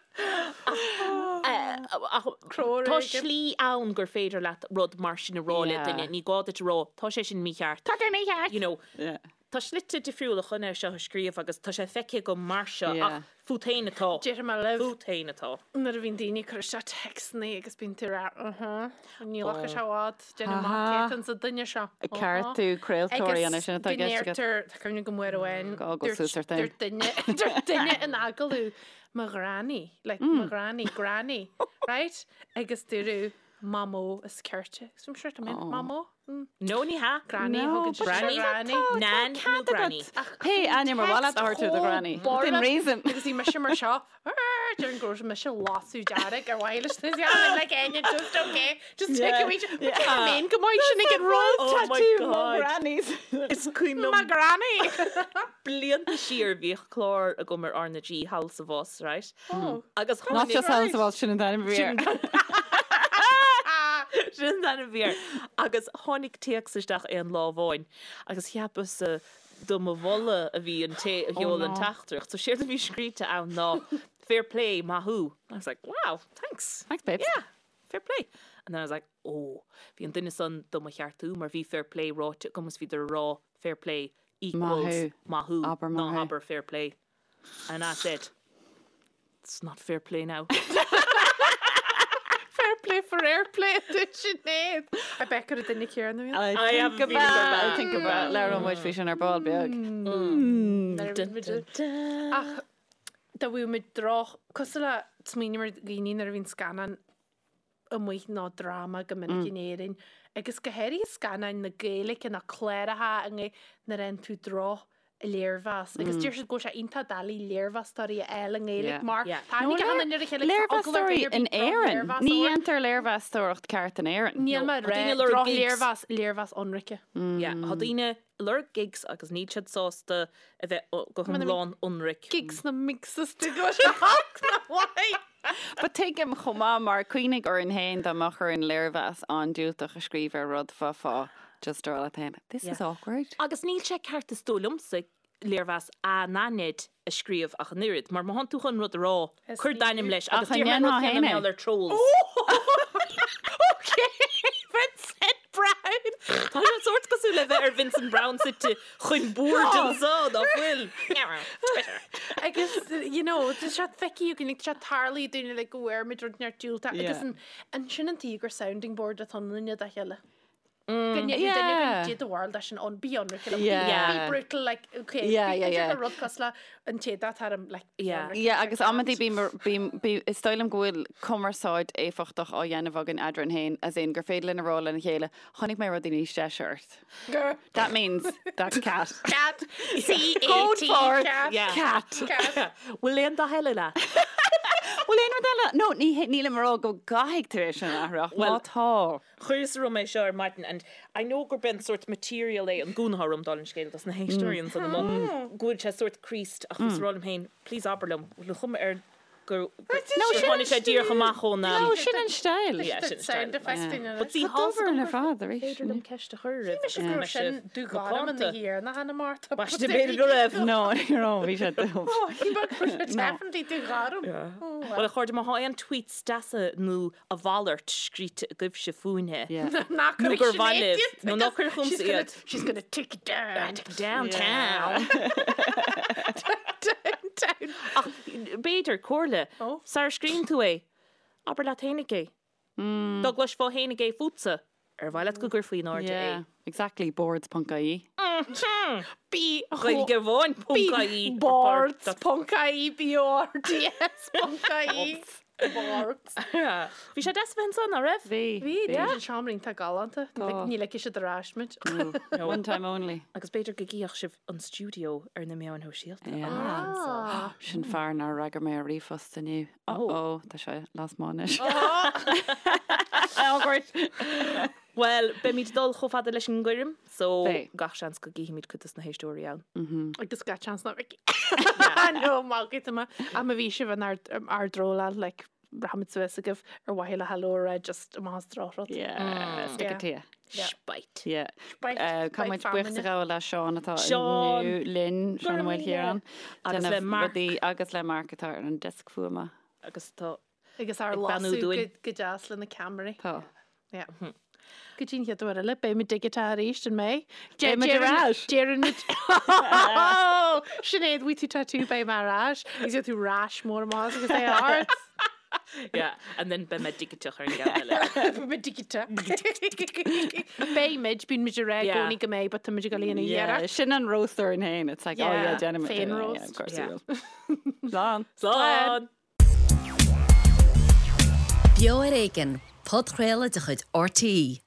Ach Cró tá éigin. slí ann gur féidir leat rud mar sin a rá le Yeah. duine, ní gá duit a rá, tá sé sin mícheart. Tá sé mícheart. You know, Yeah. Tá slite difriúla chun é seo a scríobh agus tá sé feicthe agam mar seo Yeah. ach fút féin atá. Déarfaidh mé libh. Fút féin atá. Nuair a bhíonn daoine ag cur isteach téacsanna agus bíonn tú ag rá, uh-huh, níl ach sé i bhfad, déanamh amach Aha. cé atá sa duine seo. Ag ceartú craoltóirí an é sin atá i gceist agat. Agus go ndeirtear, tá cuimhne agam uair amháin, Gá go suas ort féin. dúirt duine, dúirt duine in agallamh, mo ghranny, like mo ghranny, granny, right? Agus dúradh mamó is cirte. Agus bhí mise sure, mamó? No ní hea. Granny, No, thugann but siad Granny. granny. Nan nó granny. Pé ainm ar mhaith leat a thabhairt do ghranny. Within reason. Agus bhí mise mar seo, Déarfainn go raibh mise lasadh dearg ar mhaith leis na I'm like Enya, just okay, just take a wee yeah. Main go maith sin ag an rud. Oh my Tattoo mo God. grannies. Is cuimhin My liom granny. blianta siar bhíodh clár agam ar R na G Thall sa Bhus, right? Oh. Agus Not tháinig just Thall sa Bhus sin an t-ainm a bhí air. Sin Sin an t-ainm a bhí air. Agus tháinig téacs isteach aon lá amháin agus cheapas do mo mholadh a bhí an té a sheol an teachtaireacht. So séard a bhí scríte ann ná fair play, maith thú. I was like, wow, thanks. Thanks, babes. Yeah, fair play. And then I was like, oh, bhí an duine san do mo cheartú mar bhí fair play ráite agam is bhíodar ag rá fair play equals maith thú, ná habair fair play. And I said, it's not fair play now. Fair play for airplay dúirt Sinéad. I bet gur an duine céanna a bhí. I think about, I think about, labhróidh muid faoi sin ar ball beag. Ach dá bhfuil muid droch, cosúil le smaoiním ar dhaoine nuair a bhíonn scannán amuigh nó dráma go minic in Éirinn agus go háirithe scannáin na Gaeilge nó cláracha i nGaeilge nuair a fhaigheann tú droch léirmheas agus deir siad go bhfuil sé iontach doiligh léirmheastóirí a fháil i nGaeilge mar tá aithne ag an ar a chéile agus tá eagla ar Léirmheastóirí dhuine ar bith in Éirinn. drochléirmheas a Ní thabhairt. dhéantar léirmheastóireacht ceart in Éirinn. Níl mé ag Tá rá daoine ag lorg gigs. drochléirmheas, léirmheas ionraice. Yeah, tá daoine ag lorg gigs agus níl siad sásta a bheith go hiomlán ionraic. Gigs na migs is go bhfuil sé olc ná mhaith. But tuigim chomh maith mar cuimhnigh orainn féin dá mbeadh orainn léirmheas an-diúltach a scríobh ar rud bheifeá just ag rá leat féin, this is awkward. Agus níl sé ceart is dóigh liomsa léirmheas anaithnid a scríobh ach an oiread, mar má thánn tú chun rud a rá, cuir d'ainm leis agus Ach an déarfainn an rud ndéanfá céanna féin é? mar gheall ar trolls. Ok, Vincent Browne! Tá sé sórt cosúil le bheith ar Vincent Browne suite chun boird anso, nach bhfuil? Twitter. Agus, you know, tá sé feicthe againn, like, tá sé tarlaithe dúinn like, go bhfuair muid rud neart diúltach agus Yeah. an, an sin an tuige gur sounding board atá ionainne dá chéile. Go ndéanfaidh duine Yeah. go dté do bharúil leis an on, bí ionraic liom, Yeah. be brutal, like, okay, Yeah, yeah, b'fhéidir yeah. gur rud cosúil le an té dá taram, like, bí Yeah. ionraic Yeah, liom, agus like amantaí that. bím, bím, bí, is dóigh liom go bhfuil cumarsáid éifeachtach á dhéanamh againn eadrainn féin, as in gur féidir linn a rá lena chéile, chonaic mé rudaí níos deise ort. Gur. That means that's cat. Cat. C-A-T. Code for cat. Yeah. cat. Cat. Bhfuil aon dath eile leat? Bhfuil aon rud eile? No, ní, nílim ag rá go gcaithfidh tú é sin a athrú, ach má Well, tá. Chuireas orm é seo ar maidin and I know gurb é an sórt material é an gúna atá orm dála an scéil dos na héisteoirí ansan amuigh go bhfuil sé sórt creased ach bhíos ag rá liom féin please abair liom bhfuil an chuma air gur gur tháinig sé díreach amach ón No, sin an style. Yeah, sin an style. Sound effect in But see, Tá dubh orainn ar fad arís. Féidir liom ceist a chur oraibh Mise go raibh sin dúghairm ina thiarna cheana Martha. Baiste b'fhéidir go raibh. No, ní raibh, bhí sé dubh. Oh, he definitely dúghairm. Bhuel a chairde má thá aon tweets deasa nó a mhalairt scríte agaibhse fúinne. Ná Nó gur mhaith libh, nó ná cuir chugamsa iad. She's gonna take it down. Downtown. Downtown. Ach b'fhéidir, comhairle, Oh. sara scríobhann tú é, abair leat fhéinig é. Dá gcloisfeá fhéinig é fútsa, ar mhaith leat go gcuirfí in airde Yeah, é? exactly, boards.ie. B Gaeilge amháin ponc ie. Boards ponc ie B O R D S ponc ie. Boards. Bhí sé deas a bheith ansan, ná raibh? Bhí. Bhí, bhí an seomra iontach galánta. Ní ligfidh siad ar ais muid. One time only. Agus b'fhéidir go gcífeadh sibh an stiúideo ar na meáin shóisialta. Yeah. Sin fear nár fhreagair mé ar ríomhphost inniu. Oh, oh, tá sé lasmuigh anois. Awkward. Bhuel, beimid ag dul chomh fada leis an gcoirm, so Beidh. gach seans go gcífimid cuid dos na héisteoirí ann. Agus gach seans nach bhfeicfidh. No, maith agat, Emma. Ach má bhí sibh in ár ár dtróláil, like, rachaimid suas agaibh ar mhaithe le hello a rá just amach as drochrud. Yeah, stick it to you. Spite. Yeah. Spite, Uh, spite Caithfidh muid buíochas a feamainne. ghabháil le Seán atá Seán. inniu linn, Seán Ó Maoilchiaráin. Agus le Déanamh Mark. rudaí agus le Mark atá ar an deasc fuaime. Agus tá Agus ár Ag beannú lasadh dúinn. go deas le na ceamaraí. Tá. Yeah. Go dtí an chéad uair eile, beidh muid digiteach arís, an mbeidh? Beidh muid ar ais. Deireann muid. Sinéad, bhfuil tú tattoo beidh mé ar ais. Agus tú rash mór amach agus é ort. Yeah, and then beidh mé digiteach ar an gceann eile. Beidh mé digiteach. Beidh muid, bíonn muid ag rá i Yeah. gcónaí go mbeidh, but tá muid ag dul a dhéanamh Yeah, iarracht. sin an roast orainn féin. It's like, oh yeah, Yeah, déanfaidh muid. féin Yeah, roast. of course Yeah. we will. Slán. Slán! Beo ar Éigean, podchraoladh de chuid RTÉ.